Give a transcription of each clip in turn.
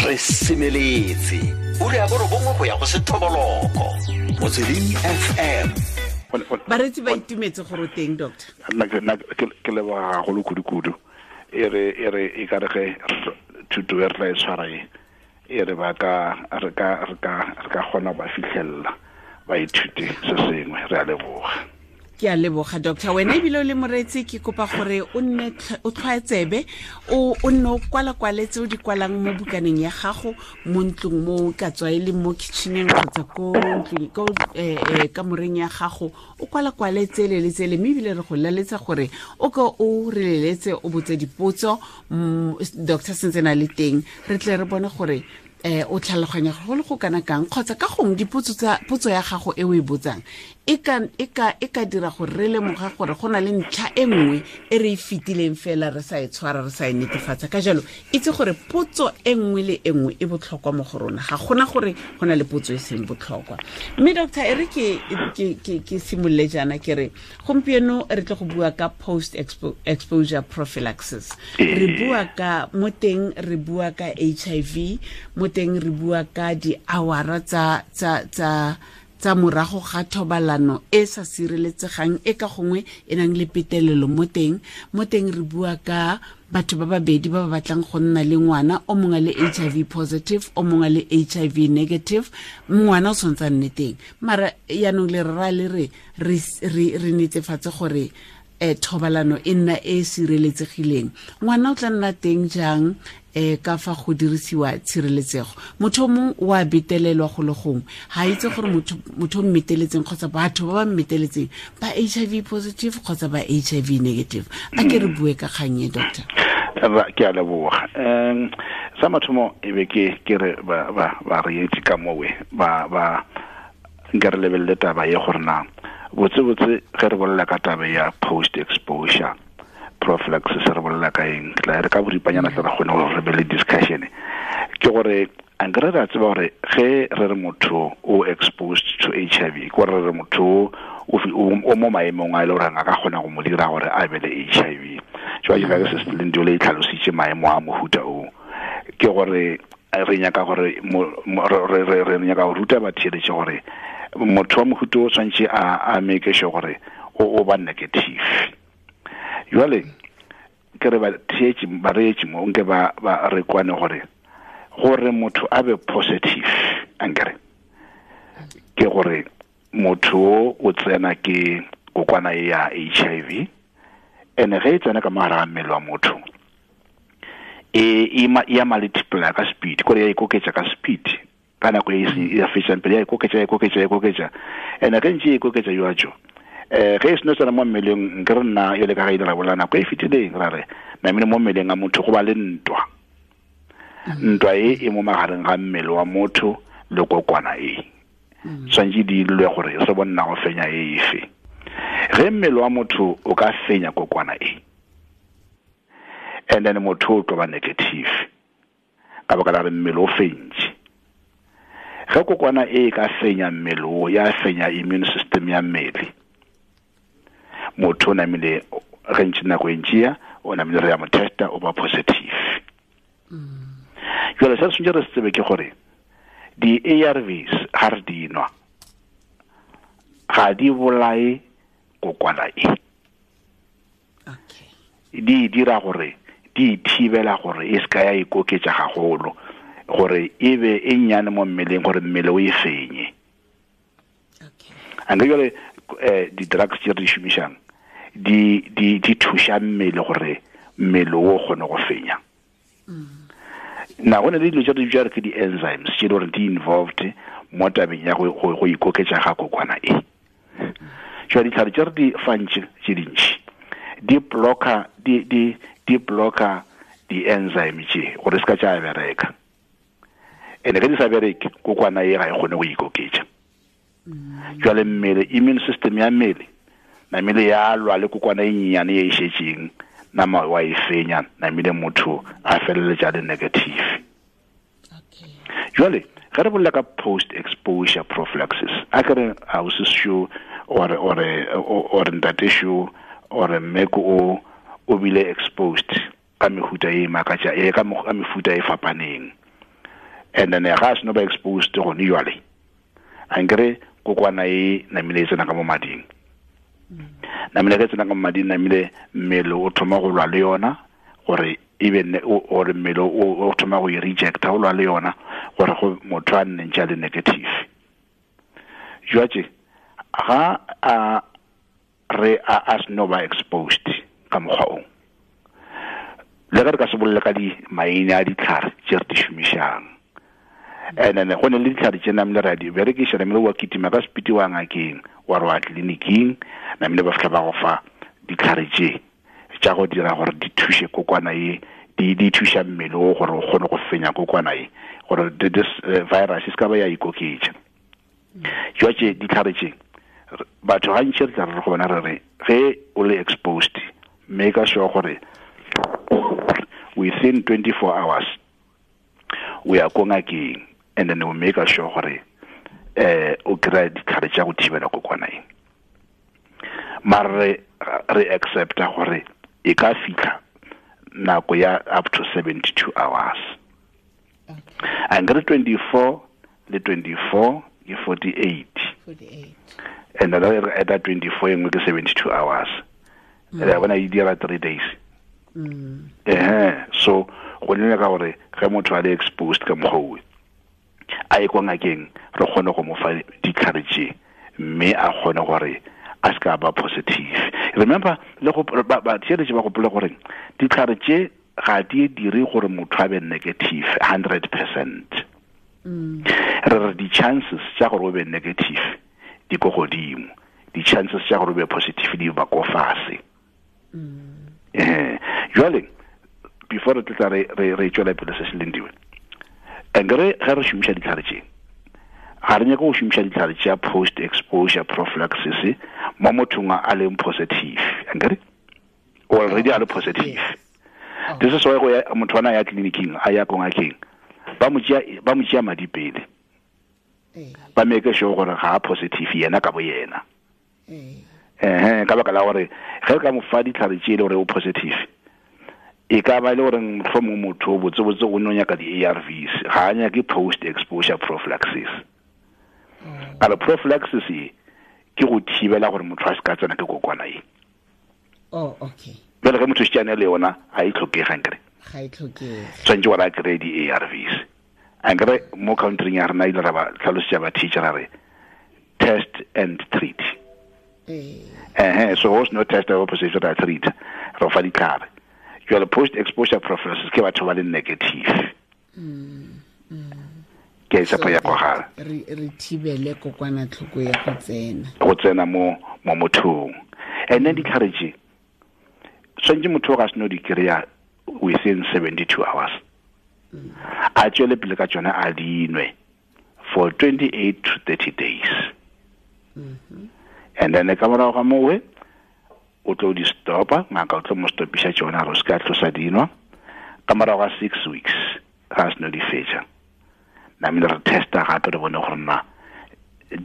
Re semeletse o re ya borobongwe go ya go sethoboloko Motsweding FM. Baretsi ba itumetse gore o teng, doctor. Nna ke leboga gagolo kudu-kudu. E re e ka re ge thuto e re tla e tshwara e re ba ka re ka re ka re ka kgona ba fitlhelela, ba ithute se sengwe. Re a leboga. Ke a leboga, doctor. Wena ebile o le moreetsi, ke kopa gore o nne o tlhwaetsebe, o nne o kwala-kwaletse o di kwalang mo bukaneng ya gago mo ntlong, mo ka tswa e le mo kitcheneng kgotsa ko ntlong, ko kamoreng ya gago, o kwala-kwale tsele le tsele. Mme ebile re go laletsa gore o ko o re leletse, o botse dipotso doctor sentse na le teng, re tle re bone gore o tlhaloganya go le go kana kang, kgotsa ka gongwe dipotso tsa potso ya gago e o e botsang e ka dira gore re lemoga gore go na le ntlha e nngwe e re e fetileng fela re sa e tshwara, re sa e netefatsa. Ka jalo itse gore potso e nngwe le e nngwe e botlhokwa mo go rona, ga gona gore go na le potso e seng botlhokwa. Mme doctor, e re ke simolole jaana, ke re gompieno re tle go bua ka post exposure prophylaxis. Re bua ka mo teng, re bua ka HIV mo teng, re bua ka di-hour tsa morago ga thobalano e sa sireletsegang, e ka gongwe e nang le petelelo mo teng. Mo teng re bua ka batho ba babedi ba ba batlang go nna le ngwana, o mongwe le HIV positive, o mongwe le HIV negative. Ngwana o tshwanetse a nne teng, mara yaanong le rra le re netefatse gore thobalano e nna e e sireletsegileng. Ngwana o tla nna teng jang ka fa go dirisiwa tshireletsego? Motho o mongwe o a betelelwa go le gongwe, ga itse gore motho o mmeteletseng kgotsa batho ba ba mmeteletseng ba HIV positive kgotsa ba HIV negative. A ke re bue ka kgang e, doctor. Ke a leboga. Sa mathomo e be ke re ba reetsi ka mowe ba nka re lebelele taba ye gore na botse-botse ge re bolela ka taba ya post exposure prophylaxis re bolela ka eng. Ke tla re ka boripanyana tla re kgone gore re be le discussion. Ke gore ankere re a tseba gore ge re re motho o exposed to HIV, ke gore re re motho o mo maemong a e le gore a ka kgona go mo dira gore a be le HIV. Jwa ke se se le e tlhalositse maemo a mohuta o, ke gore re nyaka gore re nyaka go ruta batheeletše gore motho wa mohuta o tshwanetse a make sure gore o ba negative. Jwale ke re batheetši, bareetši mo nke ba re kwane gore motho a be positive, ankere ke gore motho o tsena ke kokwana e ya HIV, ene ge e tsena ka mogare ga mmele wa motho e ya multiply ka speed, kore ya ikoketša ka speed ka nako e ya fetšang pele, ya ikoketša, ya ikoketša, ya ikoketša. Ene ge ntše e ikoketša jwajo, ge e seno tsena mo mmeleng, nke re nna yole ka ga ile ra bolela nako e fetileng, ra re namile mo mmeleng a motho go ba le ntwa. Ntwa e e mo magareng ga mmele wa motho le kokwana e tshwanetse di lwe gore se bonna go fenya e efe. Ge mmele wa motho o ka fenya kokwana e, and then motho o tlo ba negative ka baka la re mmele o fentše. Ge kokwana e ka fenya mmele o, ya fenya immune system ya mmele, motho o namile ge ntše nako e ntšea o namile re ya mo testa, o ba positive. Jale se tshwanetse re se tsebe ke gore di-ARVs ga re di nwa ga di bolae kokwana e. Di dira gore di thibela gore e se ka ya ikoketša gagolo, gore e be e nnyane mo mmeleng, gore mmele o e fenye. Anke jale di-drugs tse re di šomišang di thuša mmele gore mmele o kgone go fenya. Na go ne le dilo tse re di bitsa re ke di-enzymes tse e le gore di involved mo tabeng ya go ikoketša ga kokwana e. Jwa ditlhare tse re di fantše tse dintši di blocka di-enzyme tše gore se ka tša bereka, ene ge di sa bereke, kokwana e ga e kgone go ikoketša. Jwale mmele, immune system ya mmele namile ya lwa le kokwana e nnyane ye e šetšeng, nama wa e fenya, namile motho a feleletša le negative. Jwale ge re bolela ka post exposure prophylaxis, a ke re ausi sho or ntate sho or mmeko o bile exposed ka mehuta e makatša e ka mefuta e fapaneng. And then ga a seno ba exposed gone jwale, a nkere kokwana e namile e tsena ka mo mading. Namile ge tsena ka mo mading, namile mmele o thoma go lwa le yona, gore even gore mmele o thoma go e rejecta, o lwa le yona gore go motho a nne ntse a le negative. Jwale ga a re a seno ba exposed ka mokgwa o, le ge re ka se bolele ka di maina a ditlhare tse re di šomišang. And then go ne le ditlhare tse namile re a di berekiša, namile wa kitima ka sepiti wa ngakeng, wa re wa tleliniking, namile ba fitlha ba go fa ditlhare tse tša go dira gore di thuše kokwana ye, di thuša mmele o gore o kgone go fenya kokwana ye, gore this virus e se ka ba ya ikoketša. Jwale ditlhare tše batho gantši re tla re go bona re re ge o le exposed, make sure gore within 24 hours we are ko ngakeng, and then we make sure gore o kry-a ditlhare tša go thibela kokwana e. Mara re accepta gore e ka fitlha nako ya up to 72 hours. And re 24 le 24 ke 48. And then re add 24 engwe ke 72 hours. Re bona e dira 3 days. So go nne ka gore ge motho a le exposed ka mokgwa o, a ye kwa ngakeng, re kgone go mo fa ditlhare tše, mme a kgone gore a se ka ba positive. Remember, le go ba theeletše ba gopola gore ditlhare tše ga di dire gore motho a be negative 100%. Re re di-chances tša gore o be negative di ko godimo, di-chances tša gore o be positive di ba ko fase. Jwale before re tla re tšwela pele se se leng diwe, nkere ge re šomiša ditlhare tše, ga re nyake go šomiša ditlhare tša post exposure prophylaxis mo mothong a leng positive, nkere already a le positive. This is why go ya motho ana ya tleliniking, a ya ko ngakeng, ba mo tšea madi pele, ba make sure gore ga a positive yena ka bo yena. Ka baka la gore ge re ka mo fa ditlhare tše e le gore o positive, e ka ba e le gore mohlomongwe motho o botsebotse o no nyaka di-ARVs, ga a nyake post exposure prophylaxis. Ka re prophylaxis e ke go thibela gore motho a se ka tsena ke kokwana e. Oh, okay. Jwale ge motho šetšane le yona ga e tlhokege, nkere ga e tlhokege, tshwanetse gore a kry-e di-ARVs. Ankere mo countryng ya rena ile ra ba tlhalosetša ba teacher ra re test and treat. So go seno test ya positive ra treat, re fa ditlhare. Jwale post exposure prophylaxis ke batho ba le negative. Ke tshepo ya kwagala re thibele kokwanatlhoko ya go tsena mo mothong. And then ditlhare tše tshwanetse motho ga seno di kry-a within 72 hours, a tswele pele ka tsona a dinwe for 28 to 30 days. And then ka morago ga mowe o tlo di stopa, ngaka o tlo mo stopiša tšona gore o se ka tlosa dinwa. Ka morago ga 6 weeks ga seno di fetša, namile re testa gape re bone gore na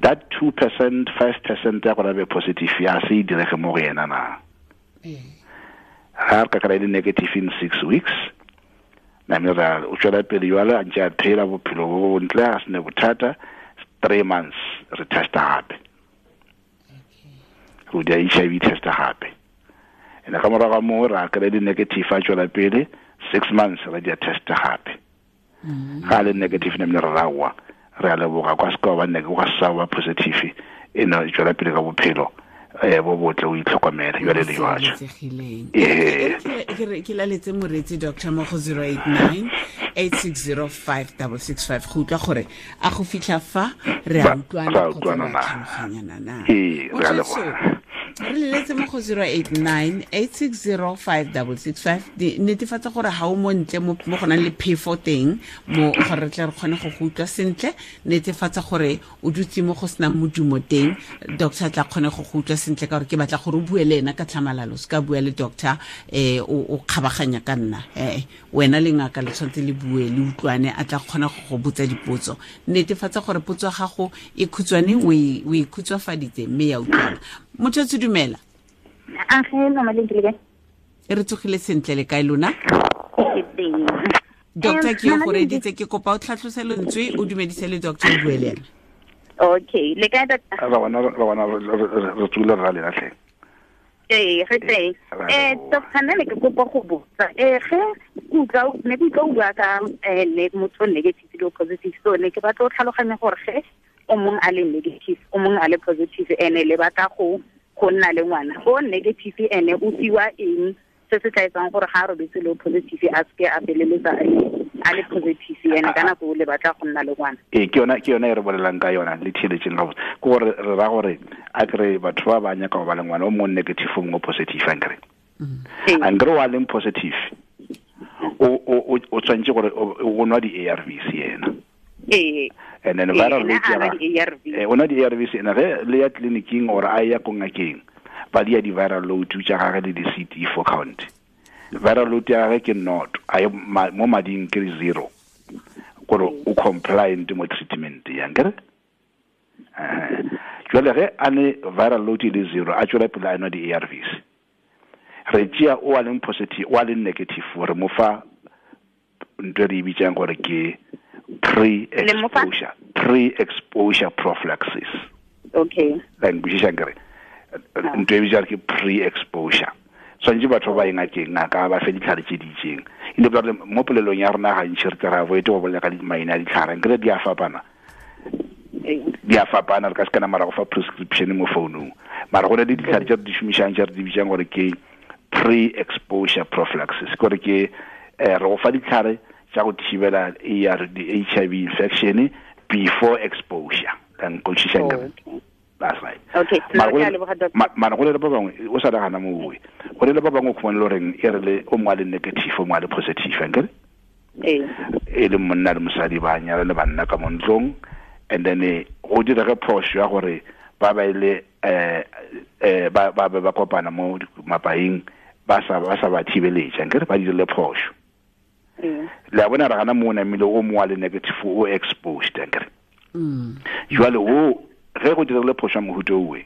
that 2%, 5% ya gore a be positive ya se e direge mo go yena na. Ga re ka kry-a le negative in 6 weeks, namile ra o tswela pele jwale a ntse a phela bophelo bo bontle, a sene bothata. 3 months re testa gape, go dia HIV testa gape. And ka morago ga moo ra kry-a di negative, a tswela pele 6 months ra dia testa gape. Ga le negative namile re rawa, re a leboga kwa se ka ba kwa sa ba positive, e no tswela pele ka bophelo bo botle, o itlhokomele jwale le jwatso. Ke laletse moreetsi doctor mo go 089 8605665 go utlwa gore a go fitlha fa re a utlwana kgotsa re a tlhaloganyana na. Re leletse mo go 089 8605665, netefatsa gore ga o mo ntle mo go nang le phefo teng, mo gore re tle re kgone go go utlwa sentle. Netefatsa gore o dutse mo go senang modumo teng, doctor tla kgone go go utlwa sentle, ka gore ke batla gore o bue le ena ka tlhamalalo, se ka bua le doctor o kgabaganya ka nna. Wena le ngaka le tshwanetse le bue le utlwane, a tla kgona go go botsa dipotso. Netefatsa gore potso ya gago e khutshwane, o e khutswafaditse mme ya utlwana. Motho tse dumela. A ge mama le ntile kae? Re tsogile sentle, le kae lona? Ke teng. Doctor ke go reditse ke kopa o tlhatlose lentswe o dumedise le doctor o bue le ena. Okay, le kae doctor? Ra bona re tsule ra le latlhe. Ee, re teng. Doctor nna ne ke kopa go botsa. Ge utlwa ne ke utlwa o bua ka ne motho negative le positive, so ne ke batla go tlhaloganya gore ge o mongwe a le negative, o mongwe a le positive, ene le batla go nna le ngwana. O negative ene o fiwa eng se se tla etsang gore ga a robetse le positive a seke a feleletsa a le positive ene ka nako le batla go nna le ngwana. Ee, ke yona e re bolelang ka yona le theeletseng gabotse. Ke gore re ra gore a kry batho ba ba nyaka go ba le ngwana o mongwe negative o mongwe positive ankere. Ankere wa leng positive o tshwanetse gore o nwa di-ARVs yena. Ee. And then viral load ya o nwa di-ARVs ena ge le ya tleliniking or a ya ko ngakeng ba di ya di-viral load tša gage le di-CD4 count. Viral load ya gage ke 0, a mo mading ke 0. Gore o compliant mo treatment ya nkere. Jwale ge a ne viral load e le 0, a tswela pele a nwa di-ARVs. Re tšea o a leng positive, o a leng negative, re mo fa ntho e re e bitsang gore ke pre-exposure prophylaxis. Okay. La nkwešiša nkere. Ntho e bitsang ke pre-exposure. Tshwanetse batho ba ngakeng ngaka ba fe ditlhare tse di itseng. E le gore mo polelong ya rona gantši re tla avoid go bolela ka maina a ditlhare, nkere di a fapana. Di a fapana, re ka se kana mara go fa prescription mo founung. Mara go na le ditlhare tse re di šomišang tse re di bitsang gore ke pre-exposure prophylaxis. Gore ke re go fa ditlhare tsa go thibela HIV infection before exposure. La nkwešiša nkere. That's right. Okay. Mara go le ba bangwe o sa nagana mo oe. Go le ba bangwe o khumane le goreng e re le o mongwe a le negative o mongwe a le positive ankere. E le monna le mosadi ba nyala le banna ka mo ntlong, and then go direge phoso ya gore ba ba ile ba ba kopana mo mapaing ba sa ba thibeletša ankere ba dirile phoso. Le a bona re gana mo namile o mongwe a le negative o exposed ankere. Jwale o ge go dirile phoso ya mohuta owe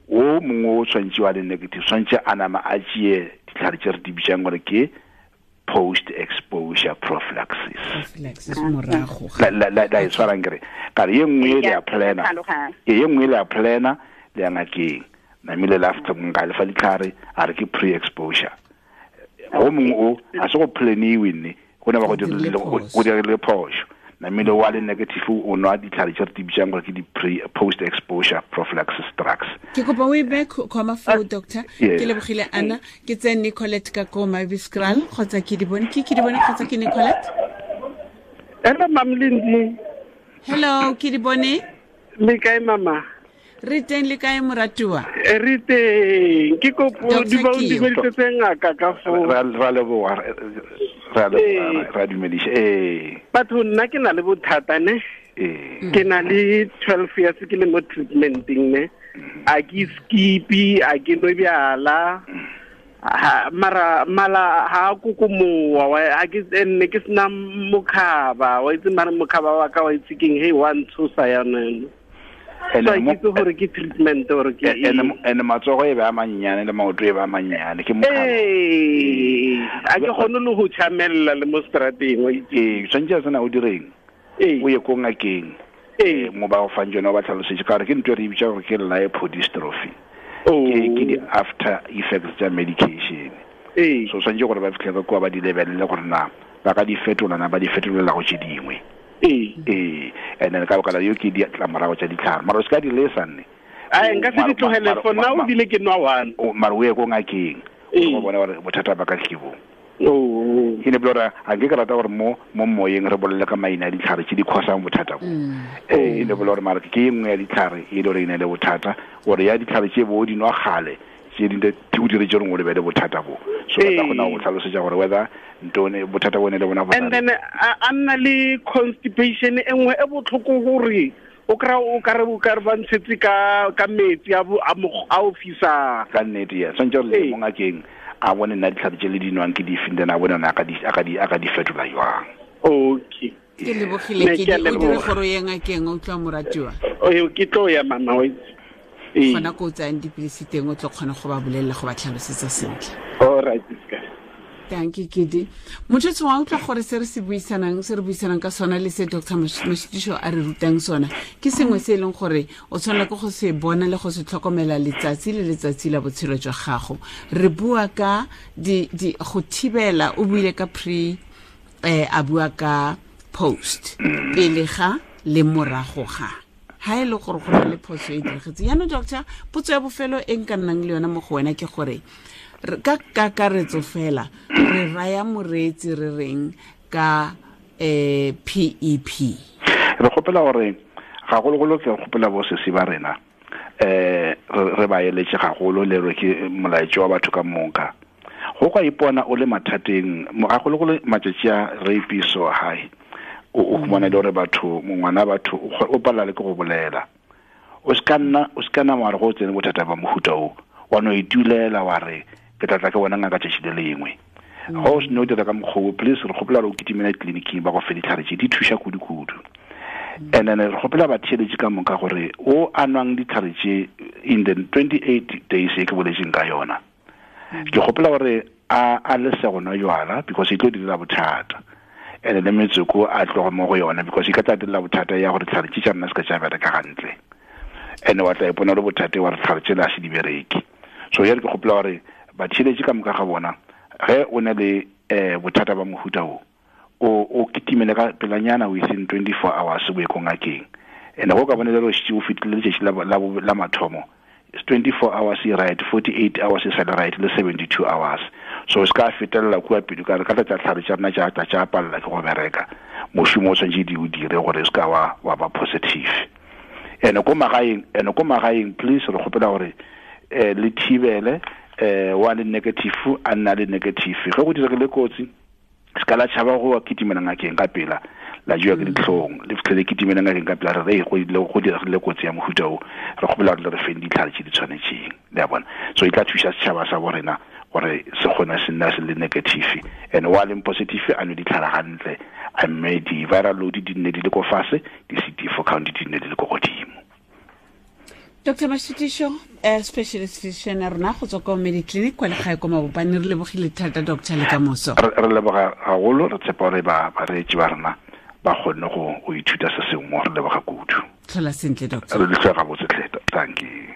o mongwe o tshwanetse wa le negative tshwanetse a nama a tšee ditlhare tse re di bitsang gore ke post exposure prophylaxis. La e tshwarang kere ka re ye nngwe le ya plana, ye nngwe le ya plana le ya ngakeng namile le after nka le fa ditlhare a re ke pre exposure. O mongwe o a se go planiwe nne go ne ba go dirile phoso. Namile wa le negative o nwa ditlhare tse re di bitsang gore ke di pre post exposure prophylaxis drugs. Ke kopa o e be comma foo doctor. Ke lebogile Anna, ke tse Nicolette ka ko Maviskral kgotsa ke di bone ke di bone kgotsa ke Nicolette. Hello Mam Lindi. Hello, ke di bone. Le kae mama? Re teng le kae moratuwa? Re teng. Ke kopo di ba o dumedisetse ngaka ka foo. Ra leboga. Ra dumedisa. Batho nna ke na le bothata ne. Ke na le 12 years ke le mo treatmenteng ne. A ke skipi, a ke nwe bjala. Mara mala ha kokomowa a ke nne ke sena mokhaba. Wa itse mara mokhaba wa ka wa itse keng he wa ntshosa yana. So ke itse gore ke treatment gore ke ene matsogo e ba mannyane le maoto e ba mannyane ke mokhaba. A ke kgone le go tšhamella le mo strateng wa itse. Tshwanetse a sena o direng o ye ko ngakeng mo ba go fang tsone o ba tlhalosetse ka gore ke ntho e re e bitsang gore ke lipodystrophy. Ke di-after effects tsa medication. So tshwanetse gore ba fitlhe ka kua ba di lebelele gore na ba ka di fetola na ba di fetolela go tse dingwe. And then ka baka la yo ke ditlamorago tsa ditlhare mara o se ka di lesa nne. Nka se di tlogele for now ebile ke nwa one. Mara o ye ko ngakeng o bona gore bothata ba ka ke bo. E ne gore a nke ke rata gore mo moyeng re bolele ka maina a ditlhare tse di khosang bothata bo. E ne gore mara ke e nngwe ya ditlhare e le gore e ne le bothata gore ya ditlhare tse bo di nwa gale tse di o diretse gore o lebele bothata bo. So ba kgona go tlhalosetsa gore whether ntone bothata bone le bona bo. And then a nna le constipation e nngwe e botlhoko gore o kry o kare ba ntshetse ka metsi a o fisang. Ka nnete ya tshwanetse gore le mo ngakeng a bone nna ditlhare tse le di nwang ke dife, then a bone a ka di fetola jwang. Okay. Ke lebogile ke di o dire gore o ye ngakeng o utlwa moratiwa. Ke tlo ya mama wa itse. Gona ko o tsayang dipilisi teng o tlo kgona go ba bolelela go ba tlhalosetsa sentle. All right, ska. Thank you, Kidi. Motho wa utlwa gore se re se buisanang, se re buisanang ka sona le se Dr. Mashitiso a re rutang sona, ke sengwe se e leng gore o tshwanela ke go se bona le go se tlhokomela letsatsi le letsatsi la botshelo jwa gago. Re bua ka di go thibela, o buile ka pre, a bua ka post, pele ga le morago ga. Ha e le gore go na le phoso e diragetse. Jaanong doctor, potso ya bofelo e nka nnang le yona mo go wena ke gore ka kakaretso fela re raya moreetsi re reng ka PEP? Re kgopela gore gagologolo ke kgopela bo sesi ba rena re ba eletse gagolo le re ke molaetso wa batho ka moka. Go ka ipona o le mathateng gagologolo matšatši a rape so high, o khumana le gore batho mongwana batho o palela le ke go bolela. O ska nna wa re go tsene bothata ba mohuta o wa no itulela wa re ke tla tla ke bona ngaka tšatši le lengwe. Go se no dira ka mokgwa o, please re kgopela gore o kitimela tleliniking ba go fe ditlhare tše di thuša kudu-kudu. And then re kgopela batheeletši ka moka gore o a nwang ditlhare tše in the 28 days e ke boletseng ka yona, ke kgopela gore a lese go nwa jwala because e tlo direla bothata. And le metsoko a tloga mo go yona because e ka tla direla bothata ya gore ditlhare tše tša rena se ka tša bereka gantle. And wa tla ipona le bothata wa re ditlhare tše le a se di bereke. So ya re ke kgopela gore batheeletši ka moka ga bona, ge o na le bothata ba mohuta o, o kitimele ka pelanyana within 24 hours o ye ko ngakeng. And go ka bona le gore o fetile letšatši la mathomo, 24 hours e right, 48 hours e sale right, le 72 hours. So se ka fetelela kua pele ka re ka tla tlhare tša rena tša tla tša palela ke go bereka. Mošomo o tshwanetse di o dire gore se ka wa ba positive. And ko magaeng please re kgopela gore le thibele wa le negative a nna le negative. Ge go diregile kotsi, se ka la tšhaba go kitimela ngakeng ka pela, la jewa ke ditlhong, le fitlhele kitimela ngakeng ka pela re re go diregile kotsi ya mohuta o, re kgopela gore le re feng ditlhare tše di tshwanetseng. Le a bona? So e tla thuša setšhaba sa bo rena gore se kgone se nna se le negative. And wa leng positive a nwe ditlhare gantle, a mme di-viral load di nne di le ko fase, di-CD4 count di nne di le ko godimo. Dr. Mashitiso, specialist physician ya rona go tswa kwa Mediclinic kwa legae kwa Mabopane, re lebogile thata doctor le ka moso. Re leboga haholo, re tshepa gore bareetši ba rena ba kgonne go ithuta se sengwe, re leboga kudu. Tlhola sentle doctor. Re le tlhola gabotse tlhe, thank you.